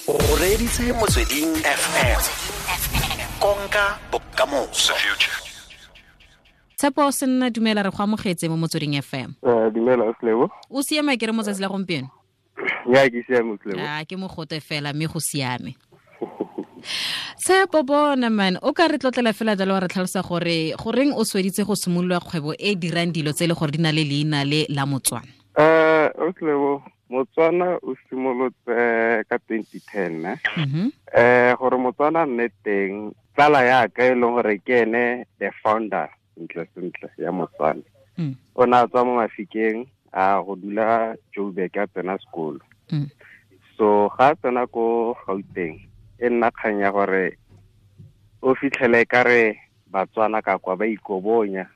O reditse Motsweding FM, konka bokamoso. Tshepo Senna, dumela, re go amogetse mo Motsweding FM. Dumela, Slebo. O siame ke re motsatsi la gompieno? Ya, ke siame, Slebo. A ke mogote fela mme go siame. Tshepo, bona man, o ka re tlotlela fela jalo wa re tlhalosa gore goreng o sweditse go simolola kgwebo e dirang dilo tse e le gore di na le leina le la Motswana? Slebo, Motswana o simolotse ka 2010, ne? Gore Motswana nne teng, tsala ya ka e leng gore ke ene the founder sentle sentle ya Motswana. O ne a tswa mo Mafikeng a go dula Joburg a tsena sekolo. So ga a tsena ko Gauteng, e nna kgang ya gore o fitlhele ka re Batswana ka kwa ba ikobonya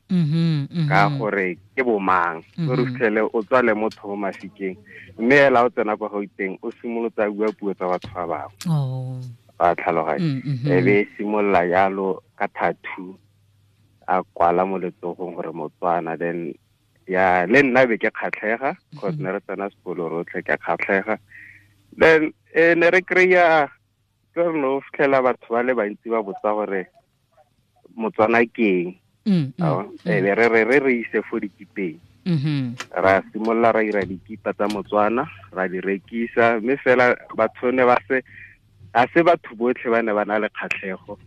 ka gore ke bomang. O re fitlhele o tswa le motho mo Mafikeng, mme ela o tsena kwa Gauteng o simolotse a bua puo tsa batho ba bangwe. Ba tlhaloganya. E be simolola jalo ka tattoo a kwala mo letsogong gore Motswana. Then ya le nna be ke kgatlhega, cause ne re tsena sekolo rotlhe, ke kgatlhega. Then ne re kry-a ke re no fitlhela batho ba le bantsi ba botsa gore Motswana ke eng. E be re ise fo dikipeng. Ra simolola ra ira dikipa tsa Motswana, ra di rekisa, mme fela batho ne ba se, a se batho botlhe ba ne ba na le kgatlhego.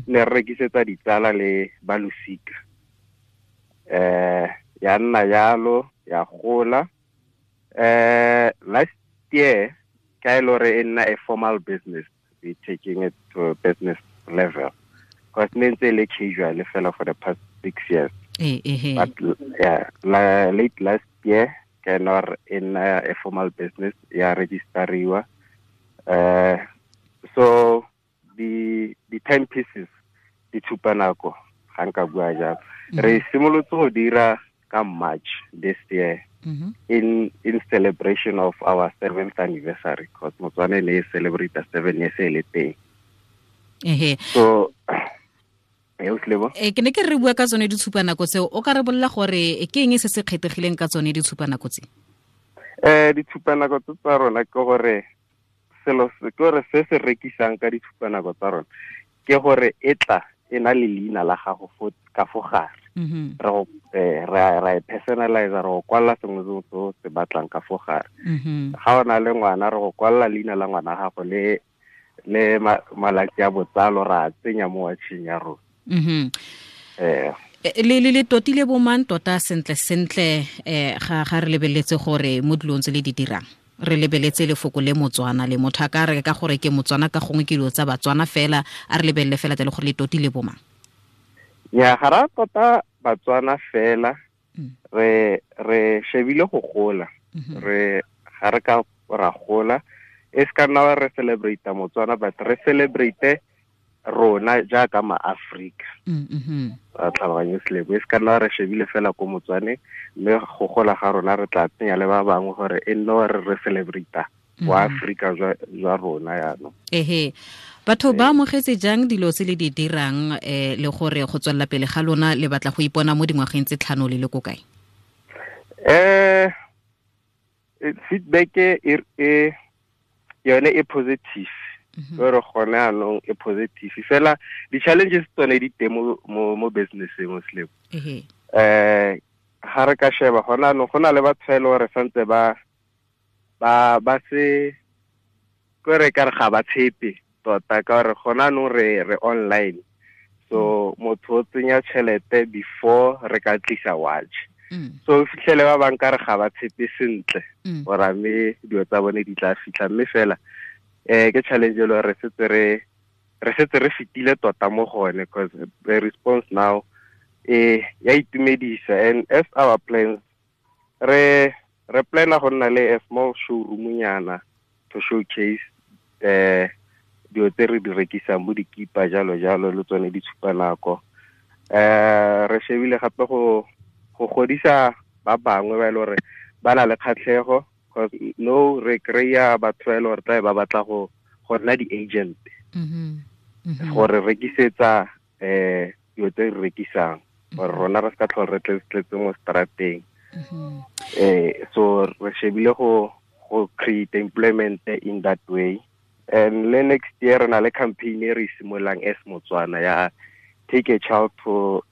Ne re rekisetsa ditsala le ba losika. Ya nna jalo, ya gola. Last year ka e le gore e nna a formal business, we taking it to a business level. Because ne ntse le casual fela for the past 6 years. But yeah, late last year ke nor in a formal business ya registeriwa. So the 10 pieces di tshupa nako ga nka bua jalo. Re simolotse go dira ka March this year in celebration of our 7th anniversary, because Motswana ne celebrate 7 years e le teng. So ke ne ke re bua ka tsone ditshupanako tseo, o ka re bolela gore ke eng se se kgethegileng ka tsone ditshupanako tse? Ditshupanako tse tsa rona ke gore selo se ke gore se se rekisang ka ditshupanako tsa rona ke gore e tla e na le leina la gago fo ka fo gare. Re e personalize, re go kwalla sengwe se o se batlang ka fo gare. Ga o na le ngwana, re go kwalla leina la ngwana gago le malatsi a botsalo, ra tsenya mo watching ya rona. Le totile bomang tota sentle sentle, ga re lebeletse gore mo dilong tse le di dirang re lebeletse lefoko le Motswana le motho a ka re ka gore ke Motswana ka gongwe ke dilo tsa Batswana fela, a re lebelele fela tse le gore le totile bomang? Ya, ga ra tota Batswana fela, re shebile go gola. Re ga re ka ra gola, e se ka nna re celebrate Motswana, but re celebrate rona jaaka ma-Afrika. Ra tlhaloganya selebo, e se ka nna re shebile fela ko Motswane, mme go gola ga rona re tla tsenya le ba bangwe gore e nne gore re celebrate wa Afrika jwa rona jaanong. Batho ba amogetse jang dilo tse le di dirang, le gore go tswelela pele ga lona le batla go ipona mo dingwageng tse 5 le le ko kae? Feedback e yone e positive. Gore gone anong e positive fela, di-challenges tsone di teng mo business-eng mo selebo. Ga re ka sheba gone anong go na le batho e le gore santse ba se kore ka re ga ba tshepe tota, ka gore gone anong re online. So motho o tsenya tšhelete before re ka tlisa watch. So fitlhele ba bang ka re ga ba tshepe sentle gore mme dilo tsa bone di tla fitlha, mme fela ke challenge e le gore re setse re fetile tota mo gone, because the response now ya itumedisa. And as our plans, re plana go nna le a small showroom nyana to showcase dilo tse re di rekisang bo dikipa jalo jalo le tsone ditshupanako. Re shebile gape go godisa ba bangwe ba e le gore ba na le kgatlhego, because no re kry-a batho ba e le gore tlabe ba batla go nna di-agent gore rekisetsa dilo tse re rekisang, gore rona re se ka tlhole re tletse mo strateng. So re shebile go create employment in that way. And le next year re na le campaign e re simololang as Motswana ya take a child to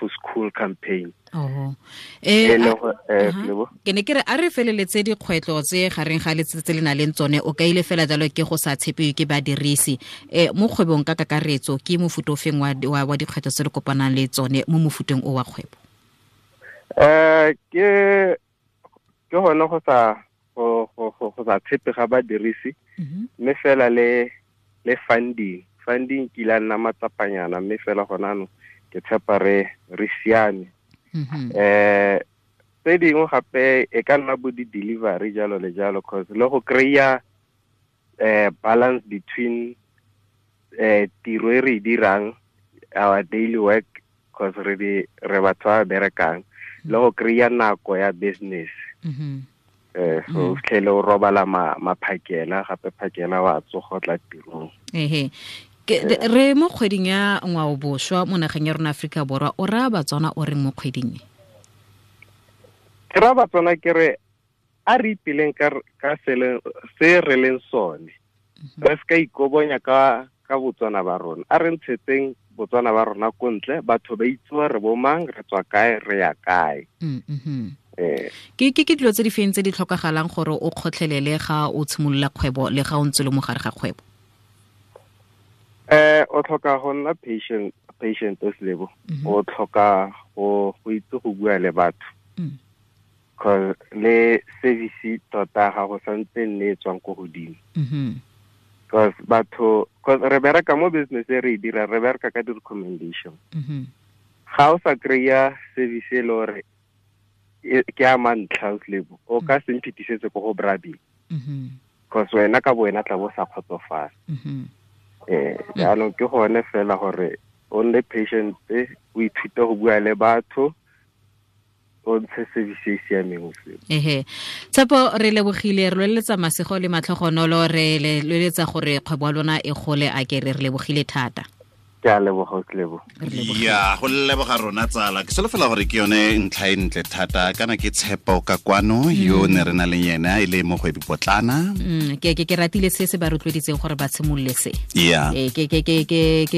school campaign. Oh. Ke ne ke re a re feleletse dikgwetlho tse gareng ga letsatsi le na leng tsone o kaile fela jalo ke go sa tshepiwe ke badirisi. Mo kgwebong ka kakaretso ke mofuta ofeng wa dikgwetlho tse le kopanang le tsone mo mofuteng o wa kgwebo? Ke gone go sa tshepe ga badirisi, mme fela le funding ke ile nna matsapanyana, mme fela gona no ke tshepa re siame. Tse dingwe gape e ka nna bo di-delivery jalo le jalo, cause le go kry-a balance between tiro e re e dirang, our daily work, cause re batho ba berekang, le go kry-a nako ya business. So fitlhele o robala maphakela gape phakela wa tsoga tla tirong. Ehe. Re mo kgweding ya ngwaoboswa mo nageng ya rona Afrika Borwa, o raya Batswana o reng mo kgweding e? Ke raya Batswana ke re a re ipeleng ka se re leng sone. Re se ka ikobonya ka Botswana ba rona. A re ntshetseng Botswana ba rona ko ntle, batho ba itse re bo mang, re tswa kae, re ya kae. Ke dilo tse di feng tse di tlhokagalang gore o kgotlhelele ga o tshimolola kgwebo le ga o ntse le mo gare ga kgwebo? O tlhoka go nna patient o o tlhoka go itse go bua le batho. Cause le service tota ga go santse nne e tswang ko godimo. Cause batho, cause re bereka mo business e re e dira, re bereka ka di-recommendation. Ga o sa kry-a service e le gore ke a mantlha o o ka se mphitisetse ko go Brabi. Cause wena ka bo wena tla bo sa kgotsofala. Jaanong ke gone fela gore o nne patient, o ithute go bua le batho, o ntshe service e siameng. Ehe. Tshepo, re lebogile, re loeletsa masego le matlhogonolo, re loeletsa gore kgwebo ya lona e gole, a ke re lebogile thata. Ke a leboga, Lebo. Ya, go leboga rona tsala. Ke solofela gore ke yone ntlha e ntle thata, kana ke Tshepo ka kwano yo ne re na le yena e le mogwebi potlana. Ke ratile se se ba rotloeditseng gore ba tshimolole se.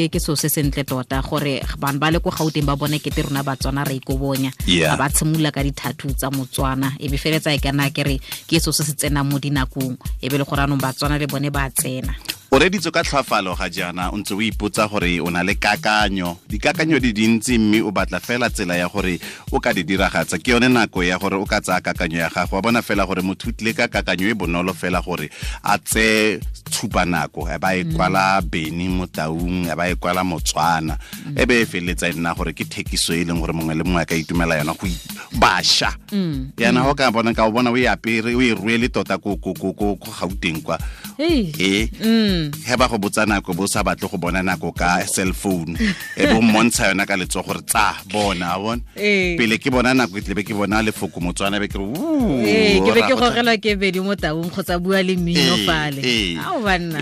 Ke so se sentle tota gore bana ba le ko Gauteng ba bone kete rona Batswana re ikobonya. Ba tshimolla ka dithathu tsa Motswana, e be feletsa e kana ke re ke so se se tsenang mo dinakong, e be le gore anong Batswana le bone ba tsena. O reditse ka tlhwafalo ga jaana o ntse o ipotsa gore o na le kakanyo, dikakanyo di dintsi mme o batla fela tsela ya gore o ka di diragatsa. Ke yone nako ya gore o ka tsaya kakanyo ya gago, wa bona fela gore motho o tlile ka kakanyo e bonolo fela gore a tseye tshupa nako, e ba e kwala Beni mo Taung, e ba e kwala Motswana, e be e feleletsa e nna gore ke thekiso e leng gore mongwe le mongwe a ka itumela yona go bašwa. Yana go ka bona ka o bona o e apere, o e rwele tota ko Gauteng kwa. He ba go botsa nako bo sa batle go bona nako ka cell phone, e bo mmontsha yona ka letsogo gore tsa bona, bona pele ke bona nako e tlebe ke bona lefoko Motswana be ke re ke be ke gogelwa ke Bedi mo Taung kgotsa bua le mmino fale. Ao banna.